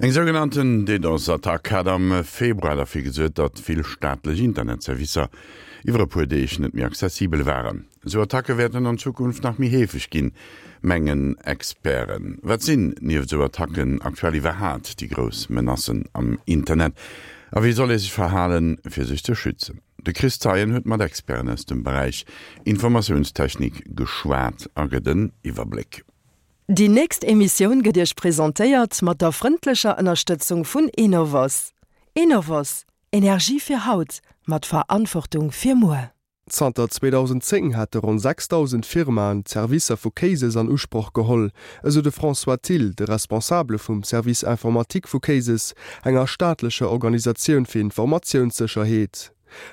Eng sougenannten DDoS-Attack hat am Februar derfir gesuert, datt vill staatlech Internetservicer iwwer e puer Deeg net méi accessibel waren. Esou Attacke wäerten an Zukunft nach méi heefeg ginn, mengen Experten. Wat sinn nieft esou Attacken aktuell iwwerhaat déi grouss Menacen am Internet a wéi soll ee sech verhalen, fir sech ze schützen? De Chris Zeien huet mat Experten aus dem Beräich Informatiounstechnik geschwat a gëtt en Iwwerbléck. Déi nächst Emissioun gëtt Iech presentéiert mat der frëndlecher Ënnerstëtzung vun Enovos. Enovos, Energie fir haut, mat Verantwortung fir muer. Zanter 2010 hätte ronn 6.000 Firmaen d'Servicer vu Cases an Usproch geholl, esou de François Thill, de Responsabele vum Service informatique vu Cases, enger staatlecher Organisatioun fir Informatiounssécherheet.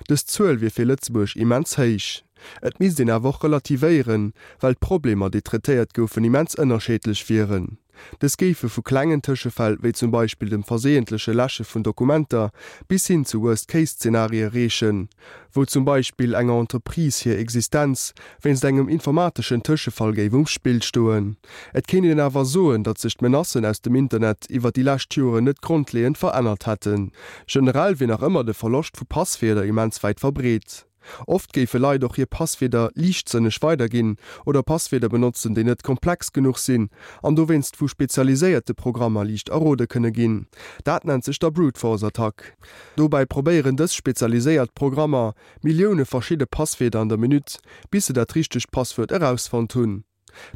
Dës Zuel wier fir Lëtzebuerg immens héich. Et misst een awer och relativéieren, well d'Problemer, déi traitéiert goufen, immens ënnerscheedlech wieren. Dës géife vu klengen Tëschefäll, wéi zum Beispill dem verseeëntleche Läsche vun Dokumenter, bis hin zu Worst-Case-Zenarie reechen, wou zum Beispill enger Entreprise hir Existenz wéinst engem informateschen Tëschefall géif um Spill stoen. Et kéint een awer soen, datt sech d'Menacen aus dem Internet iwwer déi lescht Joren net grondleeënd verännert hätten. Generell wier nach ëmmer de Verloscht vu Passwierder immens wäit verbreet. Oft géife Leit och hir Passwierder liichtsënneg weiderginn oder Passwierder benotzen, déi net komplex genuch sinn an dowéinst vu spezialiséierte Programmer liicht errode kënne ginn. Dat nennt sech da Brute-Force-Attack. Dobäi probéieren dës spezialiséiert Programmer Millioune verschidde Passwierder an der Minutt, bis se dat richtegt Passwuert erausfonnt hunn.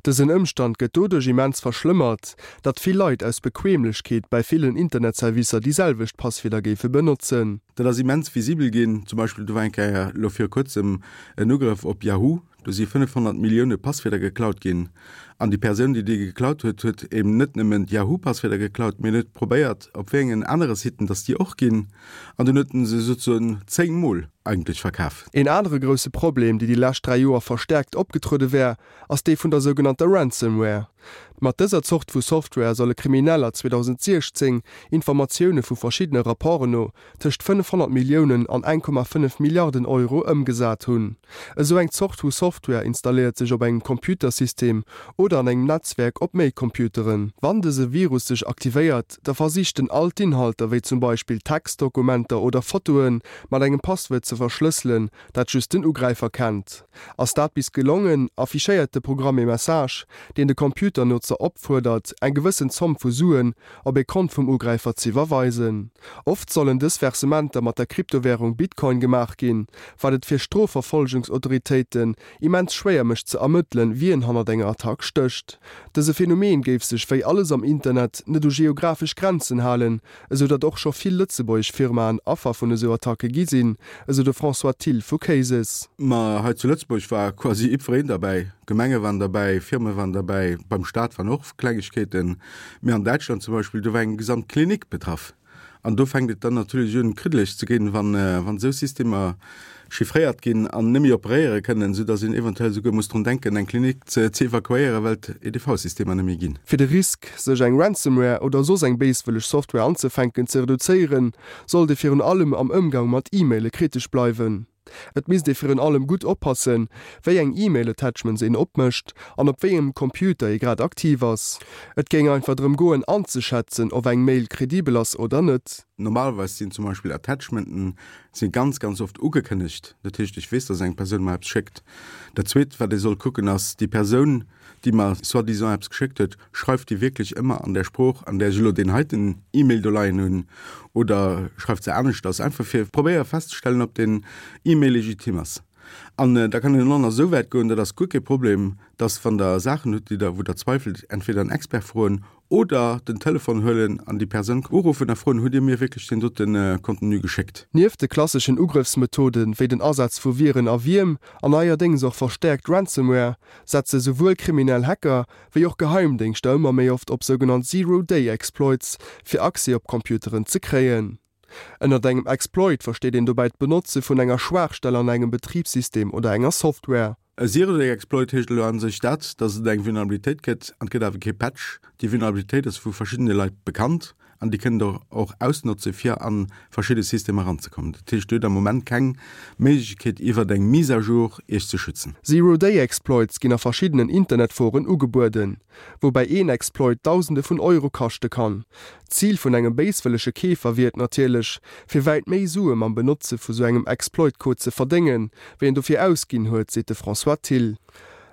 Dësen Ëmstand gëtt doduerch immens verschlëmmert, datt vill Leit aus Bequemlechkeet bäi villen Internetservicer déi selwecht Passwierder géife benotzen. Dat ass immens visibel ginn. Zum Beispill, do war eng Kéier elo viru kuerzem en Ugrëff op Yahoo, do si 500 Millioune Passwierder geklaut ginn. An déi Persoun, déi déi geklaut huet, huet eben net nëmmen d'Yahoo-Passwierder geklaut, mee en huet probéiert, op wéi engen anere Siten datt déi och ginn. An dunn huet en se souzesoen 10 Mol eigentlech verkaf. Een anere grousse Problem, dee déi lescht 3 Joer verstäerkt opgetruede wär, ass dee vun der sougenannter Ransomware. Mat dëser Zort vu Software solle Krimineller 2016, Informatioune vu verschiddene Rapporten no, tëscht 500 Milliounen an 1,5 Milliarden Euro ëmgesat hunn. Esou eng Zort vu Software installéiert sech op engem Computersystem oder an engem Netzwerk op méi Computeren. Wann dëse Virus sech aktivéiert, da versicht en all d'Inhalter, wéi zum Beispill Textdokumenter oder Fotoen, mat engem Passwuert ze verschlësselen, dat just den Ugräifer kennt. Ass dat bis gelongen, affichéiert de Programm ee Message, deen de Computernotzer opfuerdert, eng gewëssen Zomm vu Suen op ee Kont vum Ugräifer z'iwwerweisen. Oft sollen dës Versementer mat der Kryptowärung Bitcoin gemaach ginn, wat et fir Strofverfolgungsautoritéiten immens schwéier mécht ze ermëttelen, wien hannert enger Attack stécht. Dëse Phänomen géif sech, wéi alles am Internet, net u geographesch Grenzen halen, esou datt och scho vill lëtzebuergesch Firmaen Affer vun esou Attacke gi sinn, esou de François Thill vu Cases. Ma hei zu Lëtzebuerg war quasi jiddwereen derbäi, Gemenge waren derbäi, Firme waren derbäi, beim Staat waren och Klengegkeeten. Mee an Däitschland zum Beispill, do war eng gesamt Klinik betraff. An do fänkt et dann natierlech un, kriddeleg ze ginn, wann esou Systemer chiffréiert ginn an net méi operéiere kënnen, soudass een eventuell esouguer muss drun denken, eng Klinik ze evakuéieren, well d'EDV-Systemer net méi ginn. Fir de Risk, sech eng Ransomware oder soss eng béiswëlleg Software anzefänken, ze reduzéieren, sollt ee virun allem am Ëmgang mat E-Maile kritesch bleiwen. Et misst ee virun allem gutt oppassen, wéi eng E-Mail-Attachments een opmécht an op wéi engem Computer ee grad aktiv ass. Et géing einfach drëm goen anzeschätzen, ob eng Mail kredibel ass oder net. Normalerweis sinn zum Beispill Attachmenten si ganz, ganz oft ugekënnegt. Dat heescht, ech weess, dass eng Persoun mer eppes schéckt. Dat Zweet, wat ee soll kucken, ass déi Persoun, déi mer soi-disant eppes geschéckt huet, schreift déi wierklech ëmmer an där Sprooch, an där ech elo deen heiten E-Mail do leien hunn, oder schreift se aneschters? Einfach fir probéiere festzestellen, ob deen E-Mail legitim ass. An da kann een och nach esou wäit goen, dat ass guer kee Problem, dass, wann Der Saachen hutt, déi Der, wou Der zweifelt, entweder en Expert froen Oder den Telefon huelen an déi Persoun uruffen a froen, Hutt Dir mir wierklech deen dote Contenu geschéckt? Nieft de klasseschen Ugrëffsmethode wéi den Asaz vu Viren a Wierm an neierdéngs och verstäerkt Ransomware, setze souwuel kriminell Hacker wéi och Geheimdéngschter ëmmer méi oft op sougenannt Zero-Day-Exploits, fir Accès op Computeren ze kréien. Ënnert engem Exploit versteet een dobäi d'Benotze vun enger Schwaachstell an engem Betribssystem oder enger Software. E Zero-Day-Exploit heescht elo a sech dat, datt et eng Vulnerabilitéit gëtt an et gëtt awer kee Patch. Déi Vulnerabilitéit ass vu verschiddene Leit bekannt. an déi kënnen Der och ausnotze fir a verschidde Systemer eranzekommen. Dat heescht, Dir hutt am Moment keng Méiglechkeet iwwert eng Mise à jour Iech ze schützen. Zero-Day-Exploits ginn a verschiddenen Internetforen ugebueden, woubäi een Exploit Dausende vun Euro kaschte kann. D'Zil vun engem béiswëllege Keefer wier et natierlech, fir wäit méi Sue mam Benotze vu sou engem Exploit-Code ze verdéngen, wéi en dofir ausginn huet, seet de François Thill.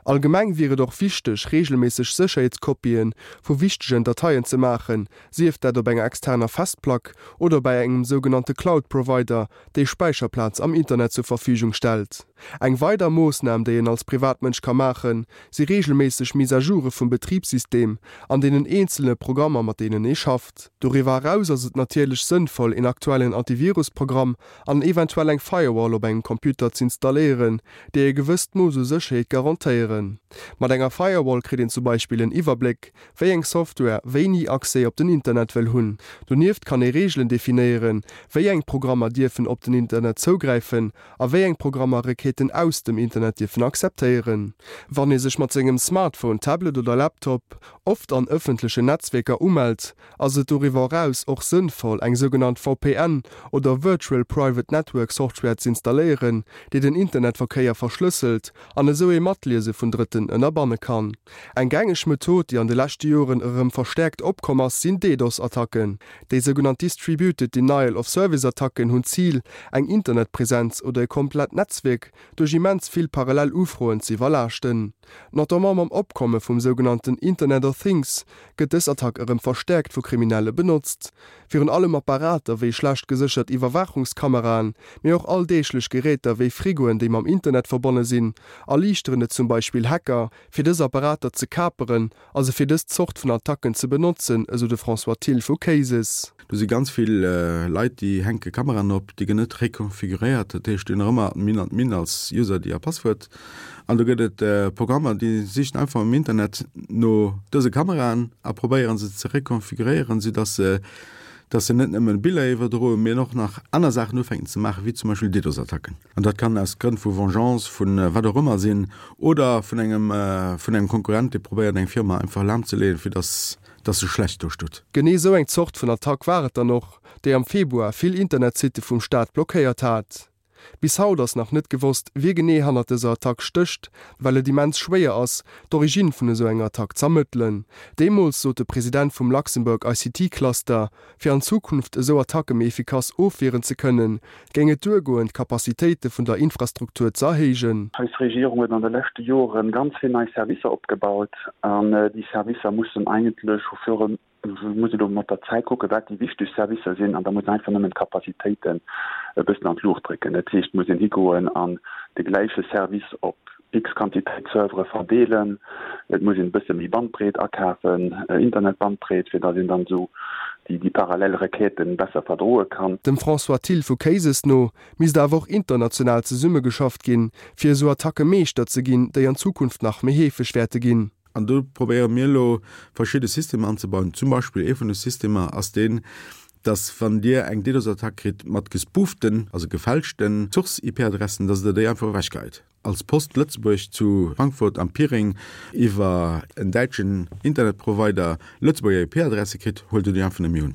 Allgemeng wier et och wichteg, reegelméisseg Sécherheetskopien vu wichtegen Dateien ze maachen, sief dat op enger externer Festplack oder bei engem sougenannte Cloud-Provider, dee Späicherplaz am Internet zur Verfügung stellt. Eng weider Moossnam, déi een als Privatmënsch ka maachen, si reegelméisseg Mise-à-joure vum Betribssystem an deenen eenzele Programmer, mat deenen ee schafft. Doriwwer eraus ass et natierlech sënnvoll, een aktuellen Antivirus-Programm an eventuell eng Firewall op engem Computer z'installéieren, déi e gewësst Mooss u Sécherheet garantéieren. Mat enger Firewall kritt een zum Beispill en Iwwerbléck, wéi eng Software wéini Accès op den Internet wëll hunn. Donieft kann ee Reegelen definéieren, wéi eng Programmer dierfen op den Internet zougräifen a wéi eng Programmer Requêten aus dem Internet dierfen akzeptéieren. Wann ee sech mat sengem Smartphone, Tablet oder Laptop oft an ëffentlechen Netzwierker umellt, ass et doriwwer eraus och sënnvoll, eng sougenannt VPN oder Virtual Private Network Software z'installéieren, déi den Internetverkéier verschlësselt an esou ee Matliese vun Drëtten ënnerbanne kann. Eng gängeg Method, déi an de leschte Joren erëm verstäerkt opkomm ass, sinn DDoS-Attacken. Déi sougenannt Distributed Denial of Service-Attacken hunn d'Zil, eng Internetpresenz oder e komplett Netzwierk duerch immens vill parallel Ufroen ze iwwerlaaschten. Notamment mam Opkomme vum sougenannten Internet of Things gëtt dës Attack erëm verstäerkt vu Kriminelle benotzt. Virun allem Apparater wéi schlecht geséchert Iwwerwaachungskameraen, mee och alldeeglech Geräter wéi Frigoen, déi mam Internet verbonne sinn, erliichteren et zum Beispill Hacker, fir dës Apparater ze kaperen a se fir dës Zort vun Attacken ze benotzen, esou de François Thill vu Cases. Do si ganz vill Leit, déi hänke Kameraen op, déi ginn net rekonfiguréiert, dat heescht, déi hunn nach ëmmer Admin, Admin als User ID a Passwuert. An do gëtt et Programmer, déi sichen einfach am Internet no dëse Kameraen a probéieren se ze rekonfiguréieren, soudass se dass se net nëmmen Biller iwwerdroen, mee och nach aner Saachen ufänken ze maachen, wéi zum Beispill DDoS-Attacken. An dat kann aus Grënn vu Vengeance, vu wat och ëmmer sinn, oder vun engem, vun engem Konkurrent, dee probéiert eng Firma einfach lahmzeleeën, fir dass, dass se schlecht do steet. Genee esou eng Zort vun Attack war et dann och, déi am Februar vill Internetsitte vum Staat blockéiert hat. Bis haut ass nach net gewosst, wie genee hannert dëser Attack stécht, well et immens schwéier ass, d'Origine vun esou enger Attack z'ermëttelen. Deemools sot de President vum Luxembourg ICT Cluster, fir an Zukunft esou Attacke méi efficace ofwieren ze kënnen, géing et duergoen, d'Capacitéite vun der Infrastruktur ze erhéijen. Eis Regierung huet an de leschte Jore ganz vill nei Servicer opgebaut an déi Servicer mussen eigentlech au fur et muss elo mat der Zäit kucken, wat déi wichteg Servicer sinn, an da muss een einfach nëmmen d'Capacitéiten e bëssen an d'Luucht drécken. Dat heescht, et muss een higoen an de gläiche Service op x Quantitéit Servere verdeelen. Et muss een e bësse méi Bandbreet akafen, Internetbandbreet, fir datt een dann esou déi parallel Requêten besser verdroe kann. Dem François Thill vu Cases no misst awer och international zesummegeschafft ginn, fir esou Attacke Meeschter ze ginn, déi an Zukunft nach méi heefeg wäerte ginn. An do probéiere mir elo verschidde Systemer anzebauen. Zum Beispill ee vun de Systemer ass deen, dass wann Dir eng DDoS-Attack kritt mat gespooften, also gefälschten Source-IP-Adressen, dass Der déi einfach ewechgeheit. Als Post Lëtzebuerg zu Frankfurt am Piring iwwer en däitschen Internetprovider Lëtzebuerger IP-Adresse kritt, huelt Der déi einfach net méi un.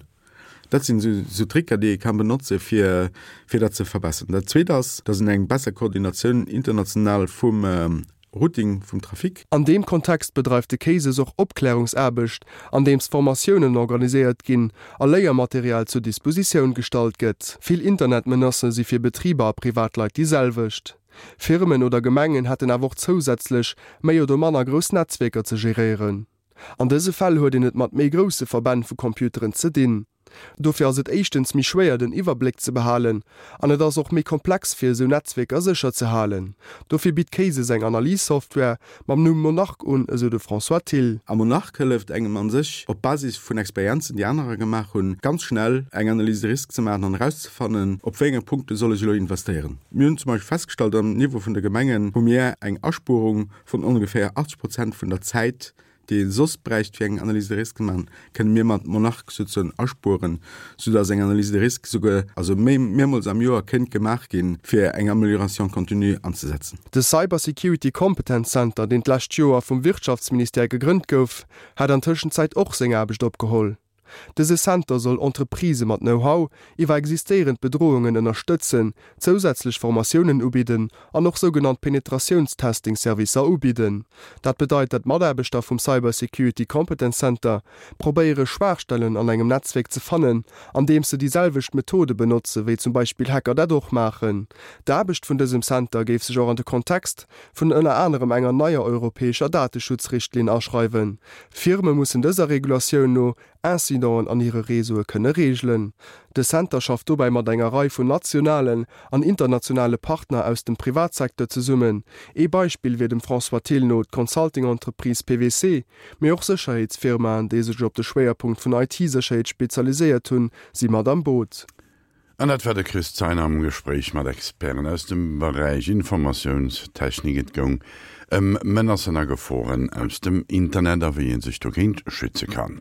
Dat sinn esou Tricker, déi ee ka benotze fir fir dat ze verbessern. Dat Zweet ass, dass een eng besser Koordinatioun international vum Routing vum Trafic. An deem Kontext bedreift de CASES och Opklärungsaarbecht, andeems Formatiounen organiséiert ginn a Léiermaterial zur Dispositioun gestallt gëtt. Vill Internetmenacë si fir Betriber a Privatleit déi selwecht. Firmen oder Gemengen hätten awer och zousätzlech méi oder manner grouss Netzwierker ze geréieren. An dëse Fäll huet een et mat méi grousse Verbänn vu Computeren ze dinn. Dofir ass et éischtens méi schwéier den Iwwerbléck ze behalen an et ass och méi komplex fir esou Netzwierker sécher ze halen. Dofir bitt Cases eng Analys-Software mam Numm Monarch un, esou de François Thill. A Monarch hëlleft engem an sech, op Basis vun Experienzen déi anerer gemaach hunn, ganz schnell eng Analyse de risque ze maachen an erauszefannen, op wéi enge Punkte soll ech elo investéieren. Mir hunn zum Beispill festgestallt, am Niveau vun de Gemengen hu mir eng Aspuerung vun ongeféier 80 Prozent vun der Zäit, déi ee soss bräicht fir eng Analyse de risque ze maachen, kënne mir mat Monarch souzesoen aspueren, soudass eng Analyse de risque souguer also méi mehrmools am Joer kéint gemaach ginn, fir eng Amélioration continue anzesetzen. De Cyber Security Competence Center, deen d'lescht Joer vum Wirtschaftsministère gegrënnt gouf, hat an Tëschenzäit och seng Aarbecht opgeholl. Dëse Center soll Entreprisë mat Know-how iwwer existéierend Bedrohungen ënnerstëtzen, zousätzlech Formatiounen ubidden an och sougenannt Penetratiounstesting-Servicer ubidden. Dat bedeit, dat Mataarbechter vum Cyber Security Competence Center probéiere Schwaachstellen an engem Netzwierk ze fannen, andeems se déi selwecht Methode benotze wéi zum Beispill Hacker dat och maachen. D'Aarbecht vun dësem Center géif sech och an de Kontext vun ënner anerem enger neier europäescher Dateschutzrichtlinn aschreiwen. Firme mussen dëser Regulatioun no Incidenten an hire Réseaue kënne reegelen. De Center schafft dobäi mat enger Rei vun nationalen an internationale Partner aus dem Privatsecteur zesummen. Ee Beispill wier dem François Thill no d'Consulting-Entreprise PwC, mee och Sécherheetsfirmaen, déi sech op de Schwéierpunkt vun IT-Sécherheet spezialiséiert hunn, si mat am Boot. An dat war de Chris Zeiner am Gespréich mat Experten aus dem Beräich Informatiounstechnik. Et goung ëm Menacen a Geforen aus dem Internet a wéi ee sech dogéint schütze kann.